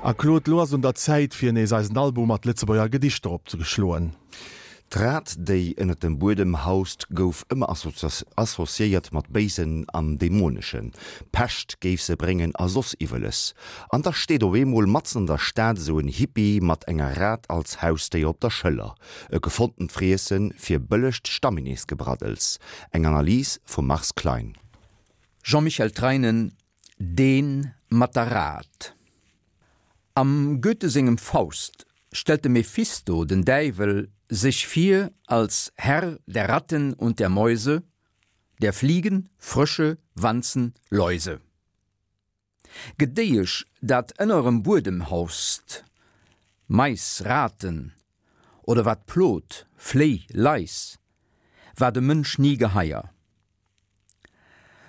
A Claude, lo ass un der Zäit fir nees eisen Album mat Lëtzebuerger Gedichter opzeschloen. D'Rat, déi ënnert dem Buedem haust, gouf ëmmer associéiert mat Béisen an Dämoneschen. Pescht géif se bréngen a soss Iwweles. An da steet op eemol matzen an der Stad esou en Hippie mat enger Rat als Hausdéier op der Schëller. E gefonntent Friesse fir bëllegt Stammineesgebraddels. Eng Analys vum Mars Klein. Jean-Michel Treinen, Deen mat der Rat. Am Goethe sengem Faust stellt de Mephisto, den Däiwel, sech vir als Herr der Ratten und der Mäuse, der Fliegen, Frösche, Wanzen, Läuse. Gedéiesch, dat ënnerem Buedem haust, Mais, Raten, oder wat plot, Fléi, Lais, war dem Mënsch ni geheier.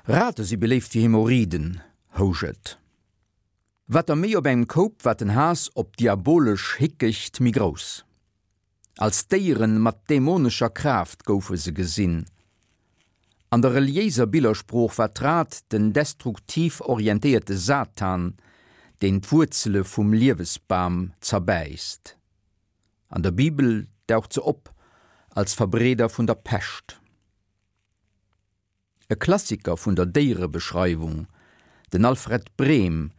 Rate si beléift fir Hämorrhiden, housch et. Wat der méi op engem Koup, wat den Haass op d'diabolesch Hickecht méi grouss. Als Déieren mat dämonescher Kraaft goufe se gesinn. An der reliéiser Billersprooch war d'Rat den destruktiv orientéierte Satan, deen d'Wuerzele vum Liewesbam zerbäisst. An der Bibel daucht se op als Verbreeder vun der Pescht. E Klassiker vun der Déierebeschreiwung, den Alfred Brehm,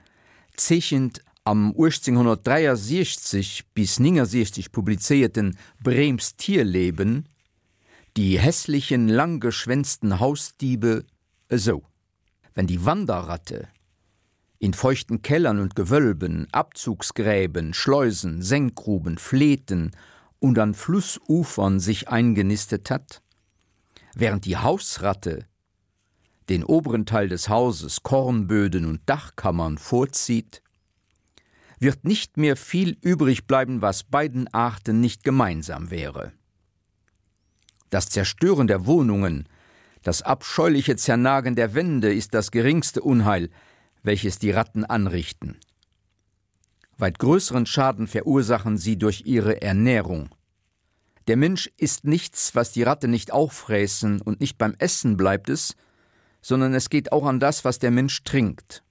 zeechent am 1863 bis 69 publizéierten Brehms Tierleben die hässlichen, langgeschwänzten Hausdiebe esou, Wenn die Wanderratte in feuchten Kellern und Gewölben, Abzugsgräben, Schleusen, Senkgruben, Fleeten und an Flussufern sich eingenistet hat, während die Hausratte den oberen Teil des Hauses, Kornböden und Dachkammern vorzieht, wird nicht mehr viel übrig bleiben, was beiden Arten nicht gemeinsam wäre. Das Zerstören der Wohnungen, das abscheuliche Zernagen der Wände ist das geringste Unheil, welches die Ratten anrichten. Weit größeren Schaden verursachen sie durch ihre Ernährung. Der Mensch isst nichts, was die Ratte nicht auffräßen und nicht beim Essen bleibt es, sondern es geht auch an das, was der Mensch trinkt.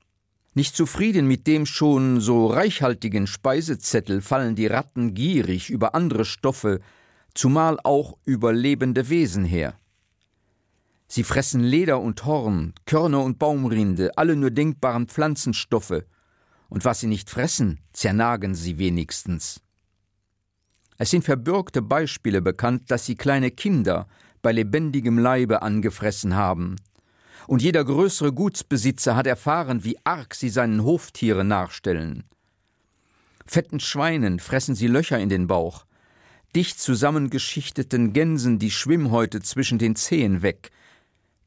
Nicht zufrieden mit dem schon so reichhaltigen Speisezettel fallen die Ratten gierig über andere Stoffe, zumal auch über lebende Wesen her. Sie fressen Leder und Horn, Körner und Baumrinde, alle nur denkbaren Pflanzenstoffe, und was sie nicht fressen, zernagen sie wenigstens. Es sind verbürgte Beispiele bekannt, dass sie kleine Kinder bei lebendigem Leibe angefressen haben. Und jeder größere Gutsbesitzer hat erfahren, wie arg sie seinen Hoftieren nachstellen. Fetten Schweinen fressen sie Löcher in den Bauch, dicht zusammengeschichteten Gänsen die Schwimmhäute zwischen den Zehen weg.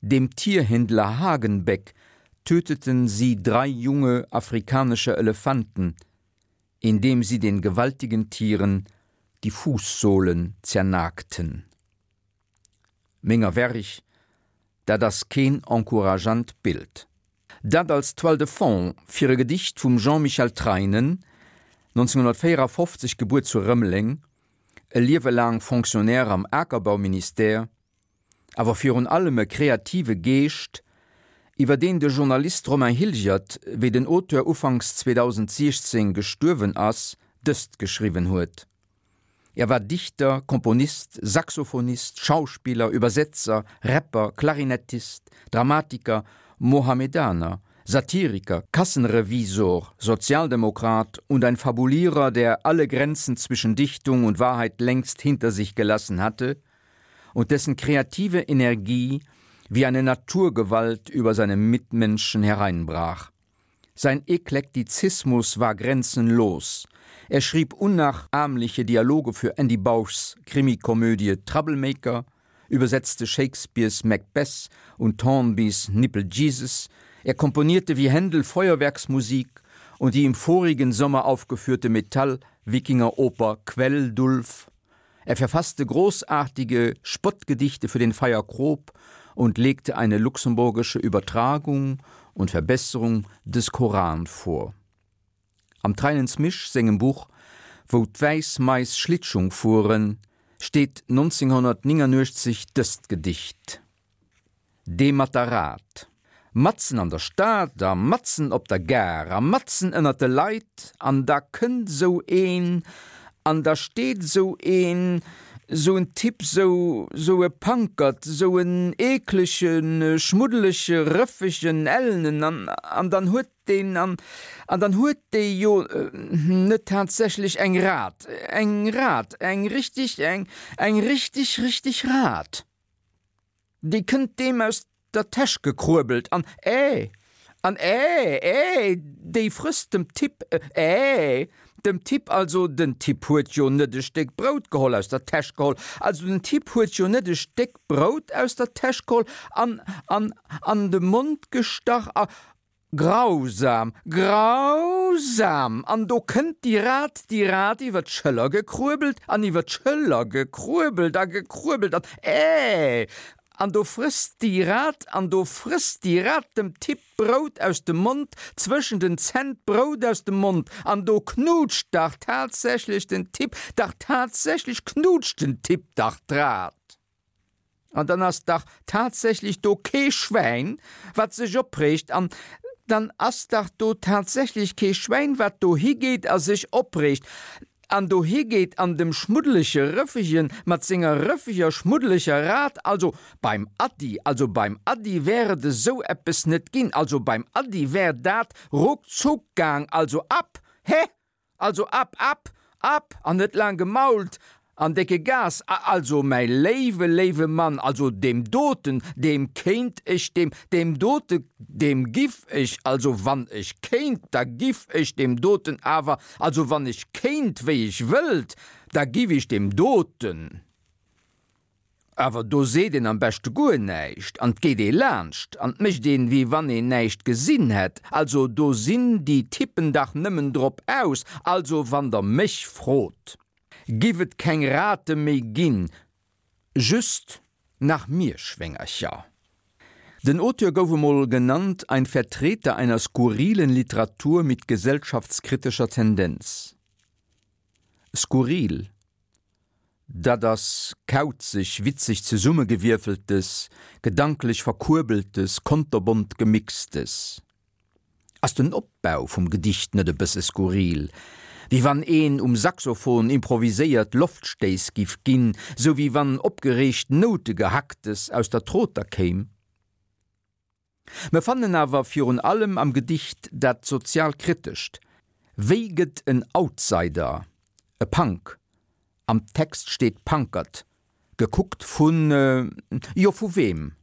Dem Tierhändler Hagenbeck töteten sie drei junge afrikanische Elefanten, indem sie den gewaltigen Tieren die Fußsohlen zernagten. Menger Werch, dat ass keen encourageant Bild. Dat als Toile de fond fir e Gedicht vum Jean-Michel Treinen, 1954 gebuer zu Rëmeleng, e Liewe laang Fonctionnaire am Akerbauministère, awer virun allem e kreative Geescht, iwwer deen de Journalist Romain Hilgert, wéi den Auteur ufanks 2016 gestuerwen ass, dëst geschriwwen huet, Er war Dichter, Komponist, Saxophonist, Schauspieler, Übersetzer, Rapper, Klarinettist, Dramatiker, Mohammedaner, Satiriker, Kassenrevisor, Sozialdemokrat und ein Fabulierer, der alle Grenzen zwischen Dichtung und Wahrheit längst hinter sich gelassen hatte und dessen kreative Energie wie eine Naturgewalt über seine Mitmenschen hereinbrach. Sein Eklektizismus war grenzenlos. Er schrieb unnachahmliche Dialoge für Andy Bauschs Krimikomödie Troublemaker, übersetzte Shakespeares Macbeth und Thornbys Nipple Jesus, er komponierte wie Händel Feuerwerksmusik und die im vorigen Sommer aufgeführte Metall-Wikingeroper Quelldulf. Er verfasste großartige Spottgedichte für den Feier Krob und legte eine luxemburgische Übertragung und Verbesserung des Koran vor. Am Treinens Misch sengem Buch Wou d'wäiss Mais Schlittschung fueren steet 1989 dëst Gedicht, Dee mat der Rat. Matzen an der Stad a matzen op der Gare a matzen ënnert de Leit an da kënnt esou een an da steet esou een, esou en Typ, esou, esou e Pankert, esou en eeklege, schmuddelege, rëffegen, ellenen an, an dann huet deen, an, an dann huet dee jo net tatsächlech eng Rat, eng Rat, eng richtig, eng, eng richtig, richtig Rat. Déi kënnt deem aus der Täsch gekruebelt an, Äh! An, Äh, äh, déi frësst dem Typ, äh, dem Typ, also den Typ huet jo net e Stéck Brout geholl, aus der Täsch geholl, also den Typ huet jo net e Stéck Brout aus der Täsch geholl an, an, an de Mond gestach a, Grausam, grausam! An do kënnt déi Rat, déi Rat iwwer d'Schëller gekruebelt an iwwer d'Schëller gekruebelt a gekruebelt an, äh! An do frësst déi Rat, an do frësst déi Rat dem Typ d'Brout aus dem Mond, zwëschen den Zänn d'Brout aus dem Mond, an do knutscht dach tatsächlech den Typ, dach tatsächlech knutscht den Typ dach d'Rat. An dann ass dach tatsächlech do kee Schwäin, wat sech opreegt. An dann ass dach do tatsächlech kee Schwäin, wat do higeet a sech opreegt an do higeet an dem schmuddelege Rëffegen mat senger rëffeger, schmuddeleger Rat, also beim Ady, also beim Ady wär et esou eppes net ginn, also beim Ady wär dat ruckzuck gaang, also ab, hä? Also ab, ab, ab an net laang gemault an décke Gas! A also mäi léiwe, léiwe Mann, also deem doten, deem kéint ech, deem, deem dote, deem giff ech, also wann ech kéint, da giff ech deem doten awer, also wann ech kéint wéi ech wëllt, da giff ech deem doten. Awer do seet een am beschte guer näischt an 't geet ee laanscht an 't mécht een, wéi wann een näischt gesinn hätt. Also do sinn déi Typen dach nëmmen drop aus. Also wann der mech frot, giff et keng Rate méi ginn, just nach Mierschwéngercher. Den Auteur gouf emol genannt ein Vertreter einer skurrilen Literatur mit gesellschaftskritischer Tendenz. Skurril. Dat ass kauzeg, witzeg zesummegewierfeltes, gedanklech verkuerbeltes, konterbont gemixtes. Ass den Opbau vum Gedicht net e bësse skurril? Wéi wann een um Saxophon improviséiert Loftstéiss giff ginn, sou wéi wann opgereegt Noutegehacktes aus der Troter kéim? Mer fannen awer virun allem am Gedicht dat Sozialkritescht, Wéi gëtt en Outsider, e Punk, am Text steet Pankert, gekuckt vun, jo vu weem?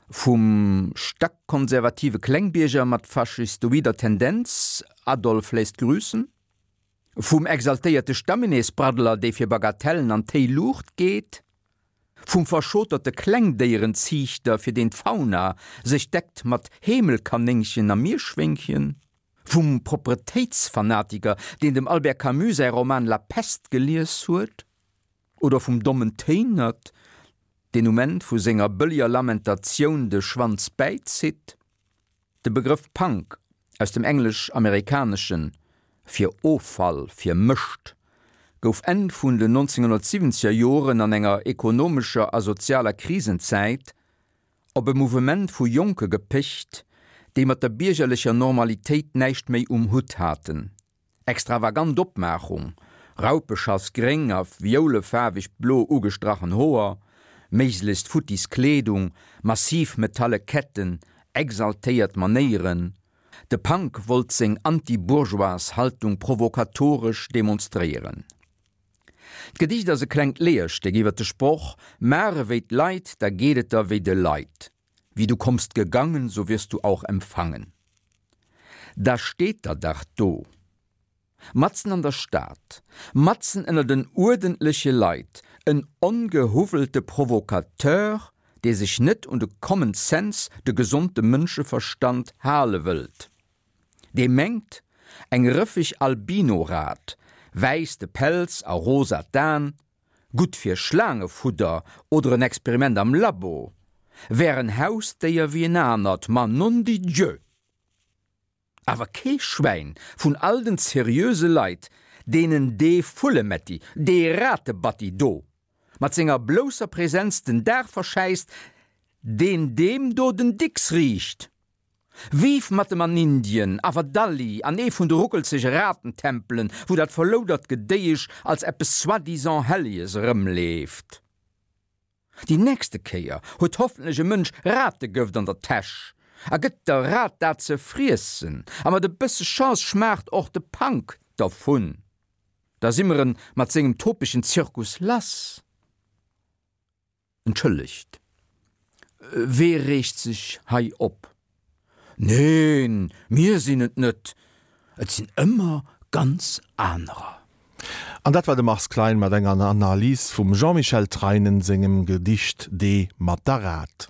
Vum stackkonservative Klengbierger mat faschistoider Tendenz, Adolf lässt grüßen? Vum exaltéierte Stammineesbraddler, dee fir Bagatellen an d'Héi Luucht geet? Vum verschoterte Klengdéierenziichter, fir deen d'Fauna sech deckt mat Heemelkanéngchen a Mierschwéngchen? Vum Propretéitsfanatiker, deen dem Albert Camus säi Roman La Peste gelies huet? Oder vum dommen Téinert, deen um Enn vu senger bëlleger Lamentatioun de Schwanz bäizitt? De Begrëff Punk, aus dem Englesch-Amerikaneschen fir Offall, fir Mëscht, gouf Enn vun den 1970er Joren an enger ekonomescher a sozialer Krisenzäit op e Mouvement vu Jonke gepecht, déi mat der biergerlecher Normalitéit näischt méi um Hutt haten. Extravagant Opmaachung, Raupeschass gréng a violefaarweg blo ugestrachen Hoer, méiglechst futtis Kleedung, massiv metalle Ketten, exaltéiert Manéieren, de Punk wollt seng anti-bourgeoise Haltung provokatoresch demonstréieren. D'Gedicht ass e klengt Leerstéck iwwer de Sproch, Maach ewéi d'Leit, da geet et der wéi de Leit. Wie du kommst gegangen, so wirst du auch empfangen. Da steet der dach do, matzen an der Stad, matzen ënner den uerdentleche Leit, en ongehuwwelte Provocateur, dee sech net un de Common Sense, de gesonde Mënscheverstand hale wëllt, dee mengt, eng rëffeg Albino-Rat, wäiss de Pelz a rosa d'Aen, gutt fir Schlaangefudder oder en Experiment am Labo, wär en Hausdéier wéi en anert, ma non di Dieu! Awer kee Schwäin vun all den seriöse Leit, deenen dee Vullemetti, dee Ratebatti do, mat senger blousser Präsenz den Dag verschäisst, Deen deem do den Dicks riicht! Vive mat em an Indien, awer dalli an ee vun de ruckelzege Ratentempelen, wou dat verloudert Gedéiesch als eppes soi-disant Helleges erëmleeft. Déi nächste Kéier huet hoffentlech e Mënsch Rategëft an der Täsch a gëtt der Rat dat ze friessen, a mat e bësse Chance schmaacht och de Punk dervun. Da si mer en mat sengem topegen Zirkus lass. Entschëllegt, wee reegt sech hei op? Neen, mir sinn et net, et sinn ëmmer ganz anerer. An dat war de Mars Klein mat enger Analys vum Jean-Michel Treinen sengem Gedicht Dee mat der Rat.